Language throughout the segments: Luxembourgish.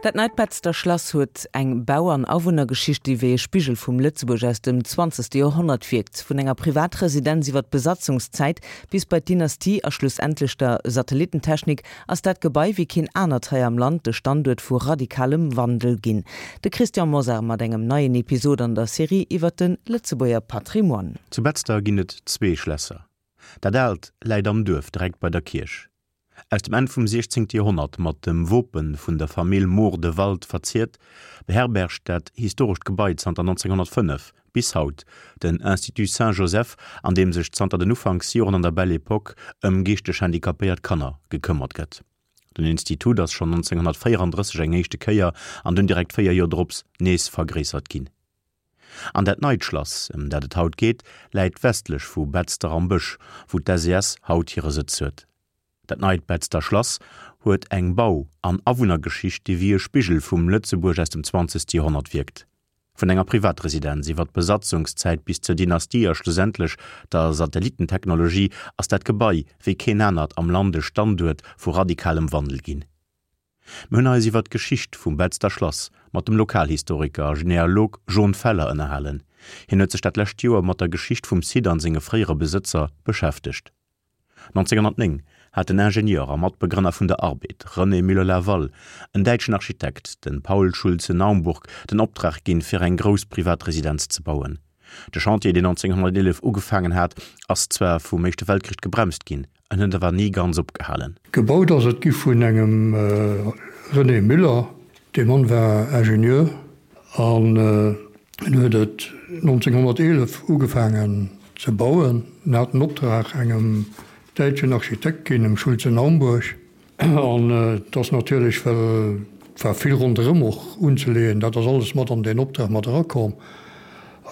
Dat neit Betzder Schlass huet eng Bau an Awunnergeschicht, déi wéi e Spigel vum Lëtzebuerg aus dem zwanzegste Joerhonnert wierkt. Vun enger Privatresidenz iwwer d'Besatzungszäit bis bei d'Dynastie a schlussendlech der Satellitentechnik ass dat Gebai wéi keen anert hei am Land de Standuert vu radikalem Wandel ginn. De Christian Mosar mat engem neien Episod an der Serie iwwer de Lëtzebuerger Patrimoine. Zu Betzder ginn et zwee Schlässer. Dat aalt läit am Duerf direkt bei der Kierch. Aus dem Enn vum 16. Joerhonnert mat dem Wope vun der Famill Mohr de Wald verziert, beherbergt dat historescht Gebai zanter 1905 bis haut den Institut Saint-Joseph, an deem sech zanter den Ufanksjoren an der Belle Epoque ëm geeschteg handicapéiert Kanner gekëmmert gëtt. Den Institut ass schonn 1934 eng éischte Kéier an dunn direkt 4 Joer drops nees vergréissert ginn. An dat neit Schlass, ëm dat et haut geet, läit westlech vu Betzder am Bësch, wou d'SES haut hire Sëtz huet. Dat neit Betzder Schlass huet eng Bau an Awunnergeschicht, déi wéi e Spigel vum Lëtzebuerg aus dem zwanzegste Joerhonnert wierkt. Vun enger Privatresidenz iwwer d'Besatzungszäit bis zur Dynastie a schlussendlech der Satellitentechnologie ass dat Gebai wéi keen anert am Land e Standuert vu radikalem Wandel ginn. Mir hunn eis iwwer d'Geschicht vum Betzder Schlass mat dem Lokalhistoriker a Genealog Jon Feller ënnerhalen. Hien huet sech dat lescht Joer mat der Geschicht vum Site an senge fréiere Besëtzer beschäftegt. 1909 hat den Ingenieur a Matbegrënner vun der Arbed, René Müller-Laval, en däitschen Architekt, de Paul Schulze-Naumburg, den Optrag ginn, fir eng grouss Privatresidenz ze bauen. De Chantier, deen 1911 ugefaangen hat, ass zwar vum Éischte Weltkrich gebremst ginn, En huet awer ni ganz opgehalen. Gebaut ass et gi vun engem René Müller. Dee Mann war Ingenieur an en huet et 1911 ugefaangen ze bauen. En hat den Optrag engem däitschen Architekt ginn, dem Schulze-Naumburg. An et ass natierlech, well et war vill ronderëm och unzeleeën, dat ass alles mat an deen Optrag mat erakomm.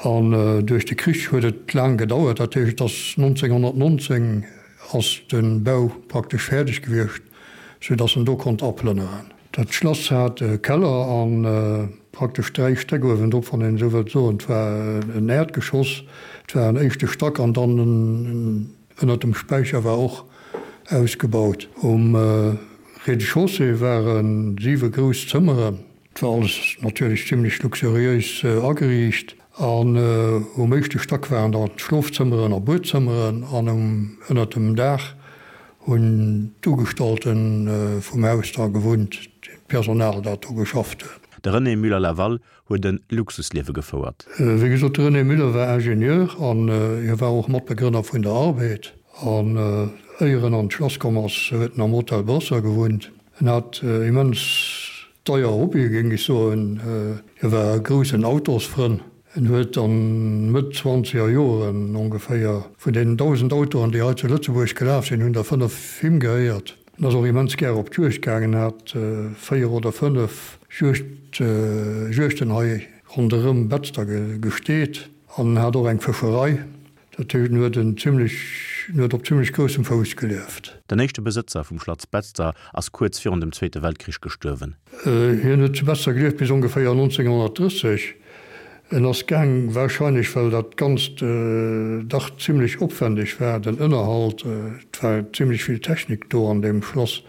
An duerch de Krich huet et laang gedauert. Dat heescht, et ass 1919 ass de Bau praktesch fäerdeg gewiescht, soudass en do konnt aplënneren. Dat Schlass hat e Keller a praktesch dräi Stäck uewendrop, wann een esou wëllt soen. Et war en Äerdgeschoss, et war en éischte Stack an dann en Ënnert dem Späicher war och ausgebaut. Um Rez-de-chaussée ware siwe grouss Zëmmeren. Et war alles natierlech zimlech luxuriéis ageriicht. An um éischte Stack waren dann d'Schlofzëmmeren a Buedzëmmeren an um ënnert dem Daach hunn d'Ugestallte vum Haus da gewunnt, d'Personal dat do geschafft huet. De René Müller-Laval huet e Luxusliewe gefouert. Wéi gesot, de René Müller war Ingenieur an hie war och Matbegrënner vun der Arbed. An éier en an d'Schlass komm ass, huet en am Hotel Brosser gewunnt. En hat immens deier Hobbye géing ech soen. Hie war e groussen Autosfrënn. En huet an Mëtt zwanzeger Joren ongeféier vun deenen 1.000 Autoen, déi hei zu Lëtzebuerg gelaf sinn, hunn der 5 him gehéiert. En ass och immens gär op d'Juegd gaangen, hat 4 oder 5 Juegd, Juegden hei ronderëm Betzder gesteet an en hat och eng Fëscherei. Dat heescht, en huet en zimlech, en huet op zimlech groussem Fouss gelieft. Den éischte Besëtzer vum Schlatz Betzder ass kuerz virun dem Zweete Weltkrich gestuerwen. Hien huet zu Betzder gelieft bis ongeféier 1930. En ass gaang, warscheinlech well dat Ganzt dach zimlech opwendeg war, den Ënnerhalt, et war zimlech vill Technik do an deem Schlass,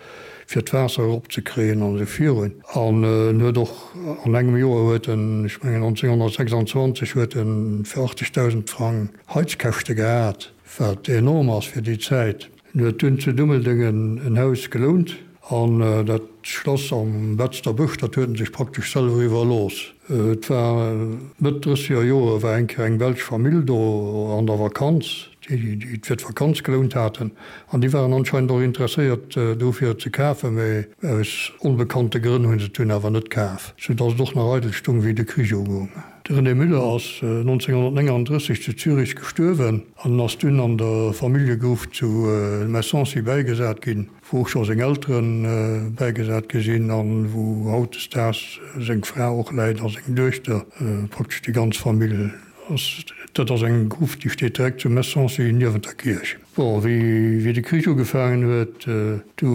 fir d'Waasser eropzekréien an esou virun. An en huet och an engem Joer huet en, ech mengen 1926, huet en fir 80.000 Frang Heizkäschte gehat, wat enorm ass fir déi Zäit. En huet dunn zu Dummeldeng en Haus gelount an dat Schlass am Betzder Bësch, dat huet en sech praktesch selwer iwwerlooss. Et war Mëtt drësseger Jore war eng Kéier eng belsch Famill do an der Vakanz, déi et fir d'Vakanz gelount haten an déi waren anscheinend och interesséiert do fir et ze kafen, mä aus onbekannte Grënn hu se et dunn awer net kaf, sou datt et och nach eidel stung wéi de Krich ugoung. De René Müller ass 1939 zu Zürich gestuerwen an ass dunn an der Familljegruft zu Messancy bäigesat ginn, wou och scho seng Eltere bäigesat gi sinn a wou hautdesdaags seng Fra och läit a seng Duechter, praktesch déi ganz Famill ass. Dat ass eng Gruft, déi steet direkt zu Messancy niewent der Kierch. Bon, wéi de Krich ugefaangen huet, du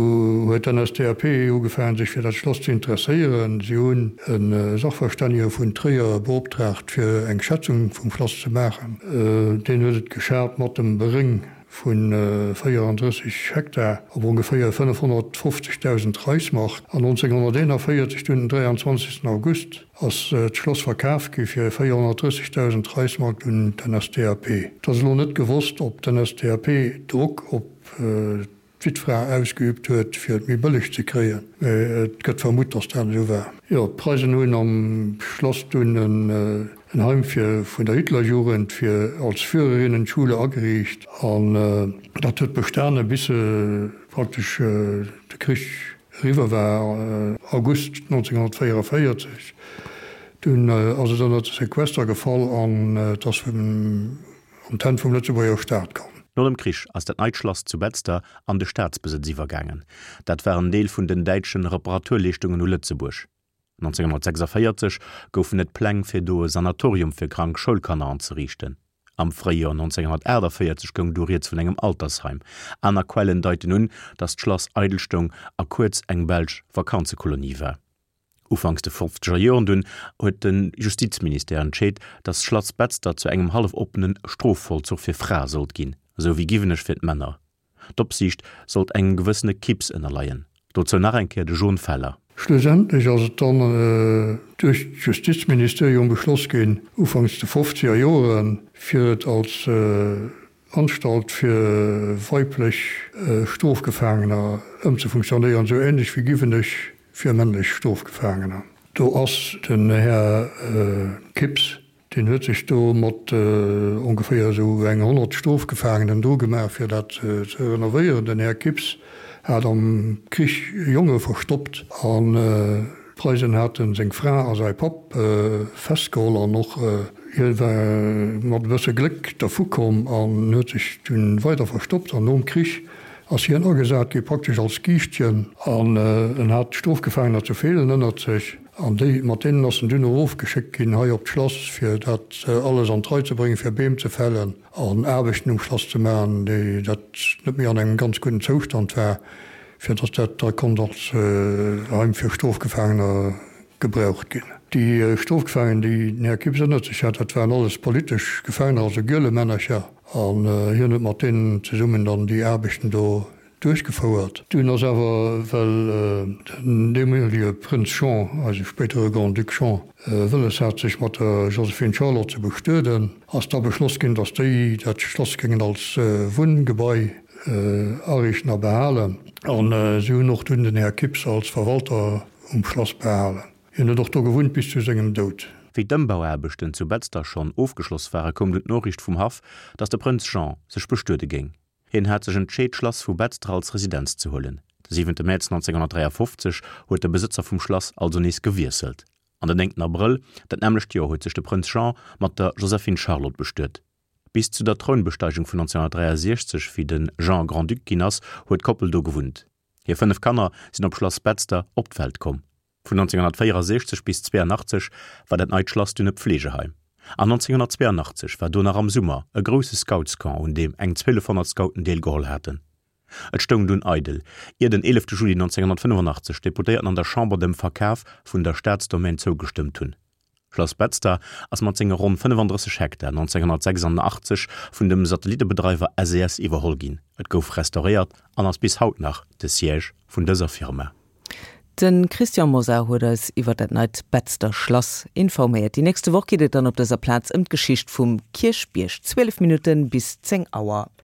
huet d'NSDAP ugefaangen, sech fir dat Schlass ze interesséieren. Si hunn e Sachverstännege vun Tréier beoptraagt, fir eng Schätzung vum Schlass ze maachen. Deen huet et geschat mat dem Beréng. vu 34 Hektar op ongeféier 550.000 Reichsmark. An 1941 dunn den 23 August ass d'Schloss verkaf gi fir 430.000 Reichsmark un d'NSDAP. Et ass elo net gewosst, ob d'NSDAP Drock op d'Wittfra ausgeübt huet, fir et méi bëlleg ze kréien, mä et gëtt vermutt, datt dat esou war. Jo, d'Preisen hunn am Schlass dunn en Heim fir vun der Hitlerjugend fir als Führerinnenschule ageriicht an dat huet bestane bis praktesch de Krich eriwwer war, August 1944. Dunn ass et ënner de Sequester gefall an et ass vum An d'Hänn vum Lëtzebuerger Staat komm. No dem Krich ass dat neit Schlass zu Betzder an de Staatsbesëtz iwwergaangen. Dat war en Deel vun den däitschen Reparaturleeschtungen u Lëtzebuerg. 1946 goufen et Pläng fir do e Sanatorium fir krank Schoulkanner anzeriichten. Am Fréijoer 1948 goung du rieds vun engem Altersheim. Aner Quellen deiten un, datt d'Schlass eidel stoung a kuerz eng belsch Vakanzekolonie war. Ufanks de fofzeger Joren dunn huet de Justizministère entscheet, datt d'Schlass Betzder zu engem hallef-oppene Strofvollzuch fir Frae sollt ginn, esou wéi Giwenech fir d'Männer. D'Opsiicht sollt engem gewëssene Kipps ënnerleien. Dozou nach eng Kéier de Jon Feller. Schlussendlech ass et dann duerch d'Justizministerium beschloss ginn, ufanks de fofzeger Joren, fir et als Anstalt fir weiblech Strofgefaangener ëmzefunktionéieren, esou ähnlech wéi Giwenech Fir männlech Strofgefaangener. Do ass den Här Kipps, deen huet sech do mat ongeféier esou eng 100 Strofgefaangenen dru gemaach, fir dat ze renovéieren. Den Här Kipps hat am Krich Jonge verstoppt an d'Preisen haten seng Fra a säi Papp festgeholl an och hie war mat e bësse Gléck dervu komm an huet sech dunn weider verstoppt an nom Krich ass hien agesat gi praktesch als Giischtjen an en hat Strofgefaangener zu Feelen ënnert sech an déi, mat deenen ass en dunn erofgeschéckt ginn hei op d'Schlass fir dat alles an d'Rei ze bréngen, fir Beem ze fällen an Aarbechten um Schlass ze maachen, déi dat net méi an engem ganz gudden Zoustand war, fir datt dat da konnt als Heim fir Strofgefaangener gebraucht ginn. Déi Strofgefaangen, déi den Här Kipps ënnert sech hat, dat waren alles politesch Gefaangener, also Gielemännercher. An hien huet mat deenen zesummen dann déi Aarbechten do duerchgefouert. Dunn ass awer, well den deemolige Prënz Jean, eise spéidere Grand-Duc Jean, wëlles hat, sech mat der Joséphine Charlotte ze bestueden, ass da beschloss ginn, datt déi dat Schlass géingen als Wunngebai ariichten a behalen. An si hunn och dunn den Här Kipps als Verwalter um Schlass behalen. Hien huet och do gewunnt bis zu sengem Doud. Wéi d'Ëmbauaarbechten zu Betzder schonn ofgeschloss ware koum dunn d'Noriicht vum Haff, datt de Prënz Jean sech bestuede géing. Hien hat sech entscheet d'Schlass vu Betzder als Residenz ze huelen. De siwente Mäerz 1953 huet de Besëtzer vum Schlass also nees gewiesselt an den néngten Abrëll dat nämmlecht Joer huet sech de Prënz Jean mat der Joséphine Charlotte bestuet. Bis zu der Trounbesteigung vun 1963, wéi de Jean Grand-Duc ginn ass, huet d'Koppel do gewunnt. Hir 5 Kanner sinn op Schlass Betzder op d'Welt komm. Vun 1964 bis 82 war dat neit Schlass dunn e Pflegeheim. An 1982 war do nach am Summer e grousse Scoutscamp un deem eng 1200 Scouten deelgeholl haten. Et stoung dunn eidel, ier den 11 Juli 1985 d'Deputéierten an der Chamber dem Verkaf vun der Staatsdomaine zougestëmmt hunn. Schlass Betzder ass mat senge ronn 35 Hektar 1986 vun dem Satellittebedreiwer SES iwwerholl ginn. Et gouf restauréiert an ass bis haut nach de Siège vun dëser Firma. De Christian Mosar huet eis iwwer dat neit Betzder Schlass informéiert. Déi nächste Woch geet et dann op dëser Plaz ëm d'Geschicht vum Kierchbierg. 12 Minutten bis 10 Auer.